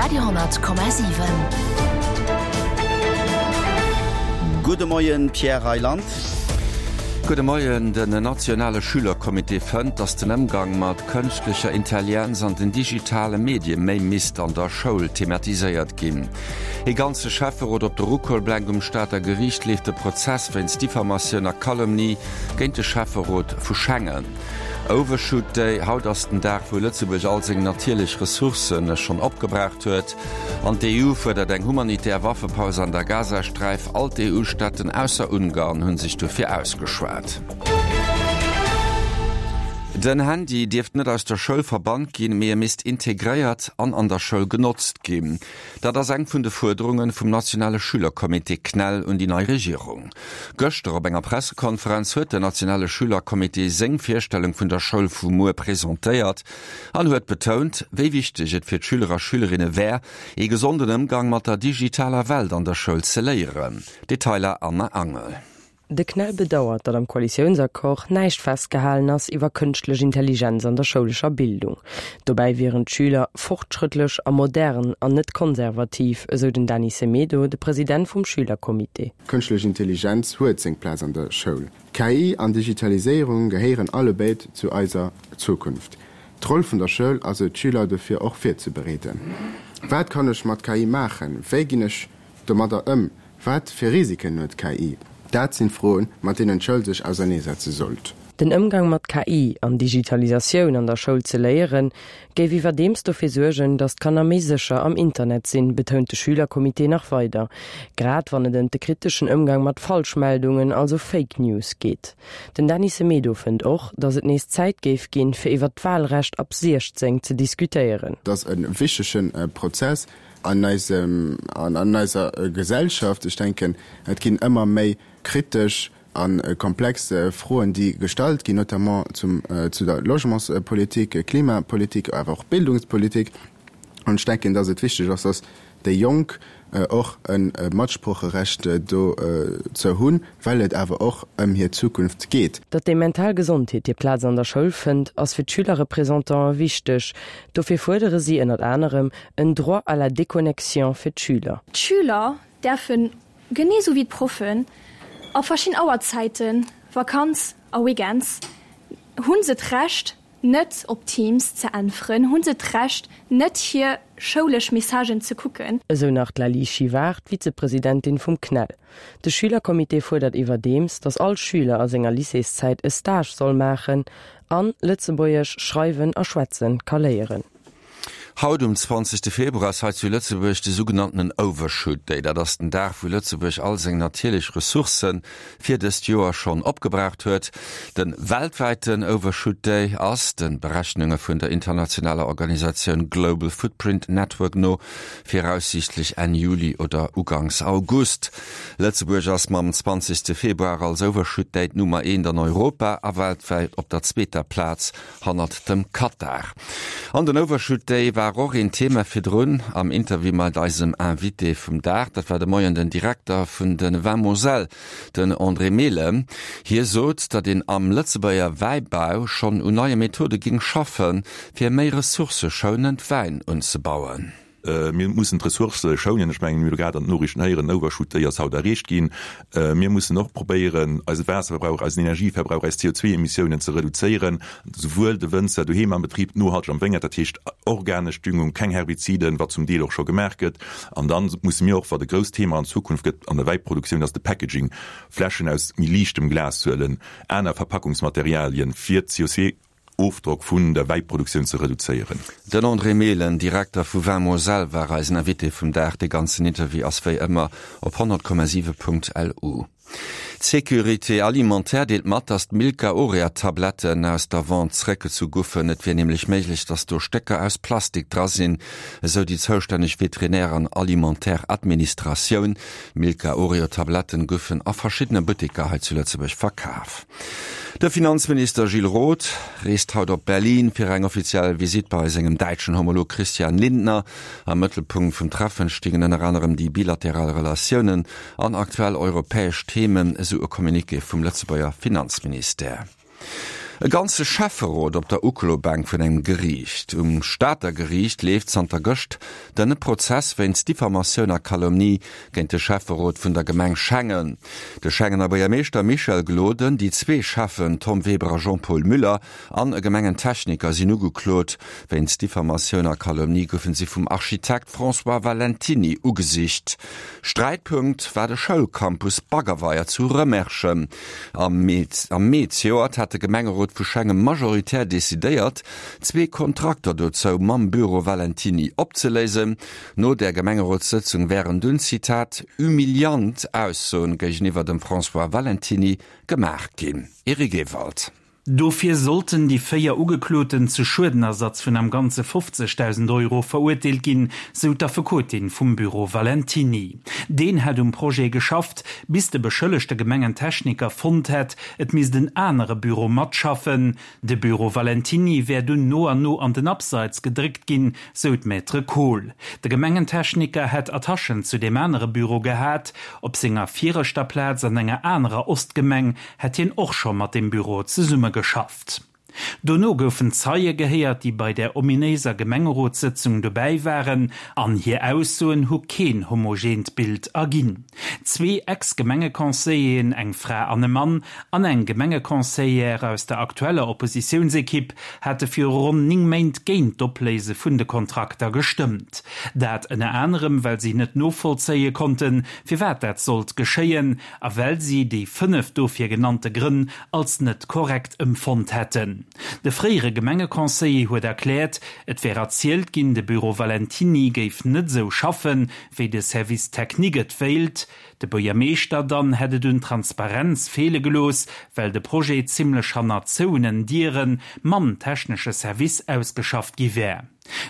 Radio 10,7. Gudde Moien, Pierre Reyland. Gudde Moien. Den nationale Schülercomité fënnt, datt den Ëmgang mat kënschtlecher Intelligenz an den digitale Medie méi misst an der Schoul thematiséiert ginn. Ee ganze Schäfferot op de Ruckolblenk Um Stater Geriicht leeft de Prozess wéinst Diffamatioun a Calomnie géint de Schäfferot vu Schengen. Overshoot Day, Haut ass den Dag, wou Lëtzebuerg all seng natierlech Ressourcë schonn opgebraucht huet. An d'EU fuerdert eng humanitär Waffepaus an der Gazasträif. All d'EU-Staaten ausser Ungarn hu sech dofir ausgeschwat. Den Handy dierft net aus der Schoul verbannt ginn, mee e misst integréiert an an der Schoul genotzt ginn. Dat ass eng vun de Fuerderunge vum nationale Schülercomité CNEL un déi nei Regierung. Gëschter op enger Pressekonferenz huet den nationale Schülercomité seng Virstellung vun der Schoul vu muer presentéiert an huet betount, wéi wichteg et fir d'Schüler a Schülerinne wär, ee gesonden Ëmgang mat der digitaler Welt an der Schoul ze léieren. Detailer Anne Angel. De CNEL bedauert, datt am Koalitiounsaccord näischt festgehalen ass iwwer kënschtlech Intelligenz an der schoulescher Bildung. Dobäi wieren d'Schüler fortschrëttlech a modern an net konservativ, esou den Dany Semedo, de President vum Schülercomité. Kënschtlech Intelligenz huet seng Plaz an der Schoul. KI an Digitaliséierung gehéieren allebéid zu eiser Zukunft. D'Roll vun der Schoul ass et, d'Schüler dofir och virzebereeden. Wat kann ech mat KI maachen? Wéi ginn ech domadder ëm? Wat fir Risiken huet KI? Dat sinn Froen, mat deenen d'Schoul sech auserneesetze sollt. Den Ëmgang mat KI an Digitalisatioun an der Schoul ze léieren, géif iwwerdeems dofir suergen, datt d'Kanner méi sécher am Internet sinn, betount de Schülercomité nach weider. Grad wann et ëm de kriteschen Ëmgang mat Falschmeldungen, also Fake News, geet. Den Dany Semedo fënnt och, datt et nees Zäit géif ginn, fir iwwer d'Walrecht ab 16 ze diskutéieren. Et ass e wichtege Prozess an eisem, an eiser Gesellschaft. Ech denken, et ginn ëmmer méi kritesch a komplex Froen, déi gestallt ginn, notamment zum, zu der Logementspolitik, Klimapolitik, awer och Bildungspolitik. An ech denken, dass et wichteg ass, dass déi Jonk och e Matsprocherecht dozou hunn, well et awer och ëm hir Zukunft geet. Datt déi mental Gesondheet hir Plaz an der Schoul fënnt, ass fir d'Schülerrepresentanten wichteg. Dofir fuerdere si ënnert anerem en Droit à la déconnexion fir d'Schüler. D'Schüler däerfen, genee sou wéi d'Proffen, a verschidden Auerzäiten, Vakanz a Weekends, hu se d'Recht net op Teams ze äntweren, hu se d'Recht net hir schoulesch Messagen ze kucken. Esou nach d'Laly Chivard, d'Vizepresidentin vum CNEL. De Schülercomité fuerdert iwwerdeems, datt all Schüler a senger Lycéeszäit e Stage soll maachen an Lëtzebuergesch schreiwen a schwätzen ka léieren. Haut um 20 Februar ass hei zu Lëtzebuerg de sougenanntenen Overshoot Day. Dat ass den Dag, wou Lëtzebuerg all seng natierlech Ressourcë fir dëst Joer schonn opgebraucht huet. De weltwäiten Overshoot Day ass, de Berechnunge vun der internationaler Organisatioun Global Footprint Network no, viraussiichtlech Enn Juli oder uganks August. Lëtzebuerg ass mam 20 Februar als Overshoot Day d'Nummer eent an Europa a weltwäit op der zweeter Plaz hannert dem Katar. An den Overshoot Day war och een Thema virdrun am Interview mat eisem Invité vum Dag. Dat war de Moien den Direkter vun de Vins Moselle, den André Mehlen. Hie sot, datt een am Lëtzebuerger Wäibau schonn un neie Methode géing schaffen, fir méi ressourcëschounend Wäin unzebauen. Mir mussen d'Ressourcë schounen. Ech mengen, mir hu grad an den Noriichten héieren, den Overshoot Day ass haut erreecht ginn. Mir mussen och probéieren, eise Waasserverbrauch, eisen Energieverbrauch, eis CO2-Emissiounen ze reduzéieren, souwuel de Wënzer doheem am Betrib, nohalteg am Wéngert, dat heescht organesch Düngung, keng Herbiziden, wat zum Deel och scho gemaach gëtt. An da musse mir och, wat e grousst Thema an Zukunft gëtt an der Wäiproduktioun, ass de Packaging, Fläschen aus méi liichtem Glas huelen, aner Verpackungsmaterialien, fir d'CO2 Ofdrock vun der Wäiproduktioun ze reduzéieren. Den André Mehlen, Direkter vu Vin Moselle, war eisen Invité vum Dag. De ganzen Interview ass wéi ëmmer op 100,7.lu. D'Sécurité alimentaire deelt mat, datt d'Milka Orea Tabletten aus der Vente zeréckgezu guffen. Et wier nämlech méiglech, datt do Stécker aus Plastik dra sinn, esou déi zoustänneg Veterinär an Alimentaire Administratioun. D'Milka Oreo Tabletten guffen a verschiddene Butteker hei zu Lëtzebuerg verkaf. De Finanzminister Gilles Roth reest haut op Berlin fir eng offiziell Visitt bei sengem däitschen Homolog Christian Lindner. Am Mëttelpunkt vum Treffen stingen ënner anerem déi bilateral Relatiounen an aktuell europäesch Themen, esou e Communiqué vum Lëtzebuerger Finanzministère. E ganze Schäfferot op der Uklobänk vun engem Geriicht. Um Stater Geriicht leeft zanter gëscht den Prozess wéinst Diffamatioun a Calomnie géint de Schäfferot vun der Gemeng Schengen. De Schengener Buergermeeschter Michel Gloden, déi zwee Schäffen Tom Weber a Jean-Paul Müller an e Gemengentechniker sinn ugeklot. Wéinst Diffamatioun a Calomnie goufen si vum Architekt François Valentiny ugesicht. Sträitpunkt war de Schoulcampus Baggerweier zu Rëmerschen. Am Mee zejoert hat de Gemengerot vu Schengen majoritär decidéiert, zwee Kontrakter dozou mam Büro Valentiny opzeléisen. No där Gemengerotssëtzung wären dunn, Zitat, humiliant Aussoen géigeniwwer dem François Valentiny gemaach ginn. Eric Ewald. Dofir sollten déi 4 Ugekloten zu Schuedenersatz vun am Ganze 50.000 Euro verurteelt ginn, sou d'Affekotin vum Büro Valentiny. Deen hätt um Projet geschafft, bis de beschëllegte Gemengentechniker fonnt hätt, et misst en anere Büro matschaffen. De Büro Valentiny wär dunn no an no an den Abseits gedréckt ginn, sou d'Maître Kohl. De Gemengentechniker hätt Attachen zu deem anere Büro gehat. Op senger viregter Plaz an enger anerer Ostgemeng hätt hien och scho mat deem Büro zesummegeschafft. Dono goufen Zeie gehéiert, déi bei där ominéiser Gemengerotssëtzung dobäi waren, an hir Aussoen hu keen homogeent Bild erginn. Zwee Ex-Gemengeconseilleren, eng Fra an e Mann, an eng Gemengeconseillère aus der aktueller Oppositiounsekipp hate viru ronn 9 Méint géint d'Opléise vun de Kontrakter gestëmmt. Dat ënner anerem, well si net novollzéie konnten, firwat dat sollt geschéien, a well si déi 5 dofir genannte Grënn als net korrekt ëmfonnt hätten. De fréiere Gemengeconseiller huet erkläert, et wär erzielt ginn, de Büro Valentiny géif net esou schaffen, wéi de Service technique et wéilt. De Buergermeeschter dann hätt et un Transparenz feele gelooss, well de Projet zimmlech hanner zouenen Diere mam technesche Service ausgeschafft gi wär.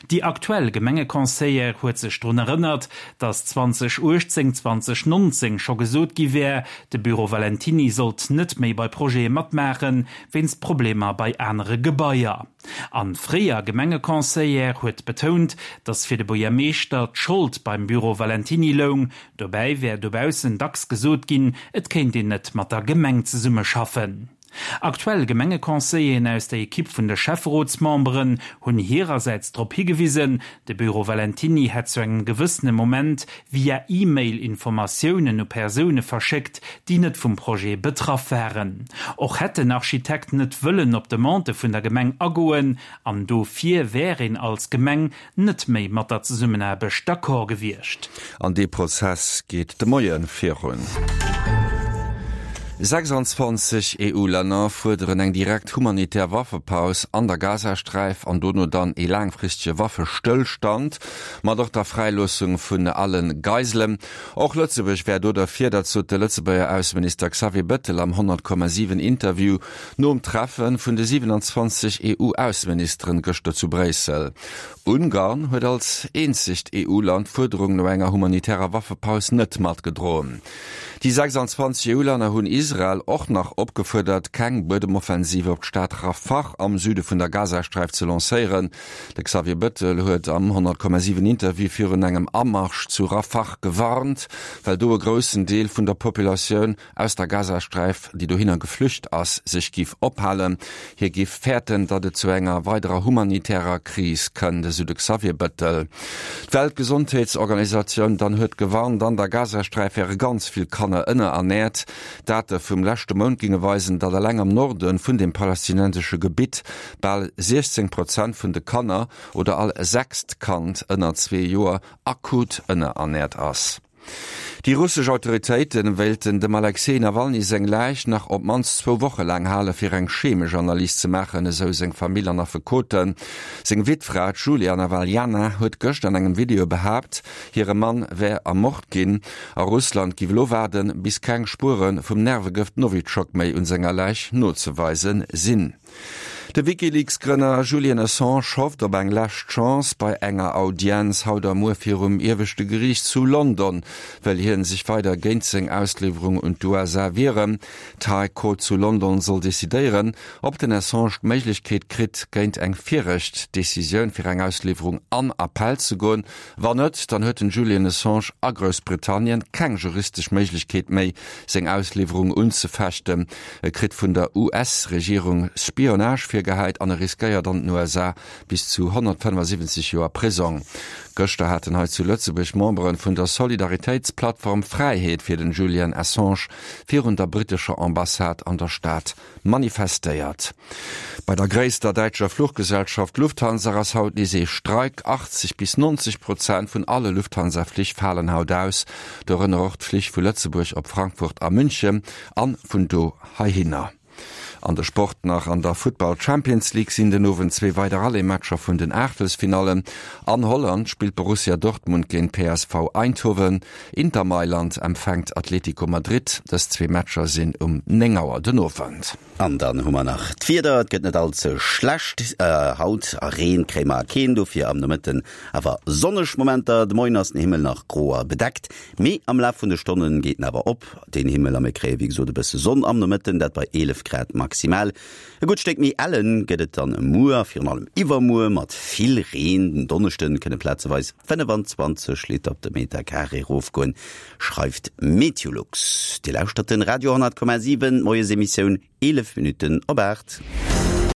Déi aktuell Gemengeconseillère huet sech drun erënnert, datt 2018, 2019 scho gesot gi wär, de Büro Valentiny sollt net méi bei Projete matmaachen, wéinst Problemer bei anere Gebaier. An fréier Gemengeconseillère huet betount, datt fir de Buergermeeschter d'Schold beim Büro Valentiny loung. Dobäi wär dobaussen dacks gesot ginn, et kéint een net mat der Gemeng zesummeschaffen. Aktuell Gemengeconseilleren aus der Ekipp vun de Schäfferotsmemberen hunn hirersäits drop higewisen, de Büro Valentiny hätt zu engem gewëssene Moment via E-Mail Informatiounen u Persoune verschéckt, déi net vum Projet betraff waren. Och hätt den Architekt net wëllen op Demandë vun der Gemeng agoen an dofir wär een als Gemeng net méi mat der Zesummenaarbecht d'accord gewiescht. An dee Prozess geet de Moie virun. 26 EU-Länner fuerderen eng direkt humanitär Waffepaus an der Gazasträif an dono dann ee laangfristege Waffestëllstand, mat och der Fräiloossung vun alle Geiselen. Och Lëtzebuerg wär do derfir, dat sot de Lëtzebuerger Ausseminister Xavier Bettel am 100,7 Interview Nom Treffe vun de 27 EU-Ausseministeren gëschter zu Bréissel. Ungarn huet als eenzegt EU-Land d'Fuerderung no enger humanitärer Waffepaus net matgedroen. Déi 26 EU-Länner hunn Israel och nach opgefuerdert, keng Buedemoffensive op d'Stad Rafah am Süde vun der Gazasträif ze lancéieren. De Xavier Bettel huet am 100,7 Interview virun engem Amarsch zu Rafah gewarnt, well do e groussen Deel vun der Populatioun aus der Gazasträif, déi dohinner geflücht ass, sech giff ophalen. Hie giff fäerten, datt et zu enger weiderer humanitärer Kris kënnt, esou de Xavier Bettel. D'Weltgesondheetsorganisatioun dann huet gewarnt, an der Gazasträif wäre ganz vill Kanner ënnerernäert. Date vum leschte Mount ginge weisen, datt eleng am Norde vun dem palästinensesche Gebitt bal 16 Prozent vun de Kanner oder all sechst Kand ënner zwee Joer akut ënnerernäert ass. Déi russesch Autoritéite wéilten dem Alexej Nawalny seng Läich nach op d'mannst zwou Woche laang hale fir eng chemesch Analys ze maachen, esou seng Famill an Affekoten. Seng Wittfra, d'Julia Nawaljana, huet gëscht an engem Video behaapt, hire Mann wär ermort ginn a Russland giff elo waarden, bis keng Spuere vum Nervegëft Nowitschok méi un senger Läich nozeweise sinn. De WikiLeaks-Grënner Julian Assange hofft op eng lescht Chance bei enger Audienz haut a muer virum ieweschte Geriicht zu London, wëll hie. Julian sech weider géint seng Ausliwwerung un d'USA wieren. D'High Court zu London soll decidéieren, ob den Assange d'Méiglechkeet kritt, géint eng viregt Decisioun fir eng Ausliwwerung an Appell ze goen. Wann net, dann huet den Julian Assange a Groussbritannien keng juristesch Méiglechkeet méi, seng Ausliwwerung unzefechten. E kritt vun der US-Regierung Spionage virgehäit an e riskéiert an den USA bis zu 175 Joer Prisong. Gëschter haten hei zu Lëtzebuerg Membere vun der Solidaritéitsplattform Fräiheet fir den Julian Assange virun der brittescher Ambassade an der Stad manifestéiert. Bei der gréisster däitscher Fluchgesellschaft Lufthansa ass haut nees ee Streik. 80 bis 90 Prozent vun alle Lufthansa-Flich falen haut aus, dorënner och d'Flich vu Lëtzebuerg op Frankfurt a München an vun do heihinner. An de Sport nach, An der Futtball Champions League sinn den Owend zwee weider Aller-Matcher vun den Aachtelsfinallen. An Holland spillt Borussia Dortmund géint PSV Eindhoven. Inter Mailand empfänkt Atletico Madrid. Dës zwee Matcher sinn um 9 Auer den Owend. An dann hu mer nach d'Wieder, Et gëtt net all ze schlecht haut a Reen kréie mer keen, dofir am Nomëtten awer sonneg Momenter. De Moien ass den Himmel nach gro a bedeckt, mee am Laf vun de Stonne geet en awer op, den Himmel, a mir kréie wéi gesot e bësse Sonn am Nomëtten, dat bei 11 Grad maximal. E gutt Stéck méi ellen gëtt et dann muer a virun allem iwwermuer mat vill Reen. Den Donneschde kënne plazeweis 25 Liter op de Meter Carré erofgoen, schreift Meteolux. Dir lauschtert den Radio 10,7, d'Moiesemissioun, 11 Minutten op 8.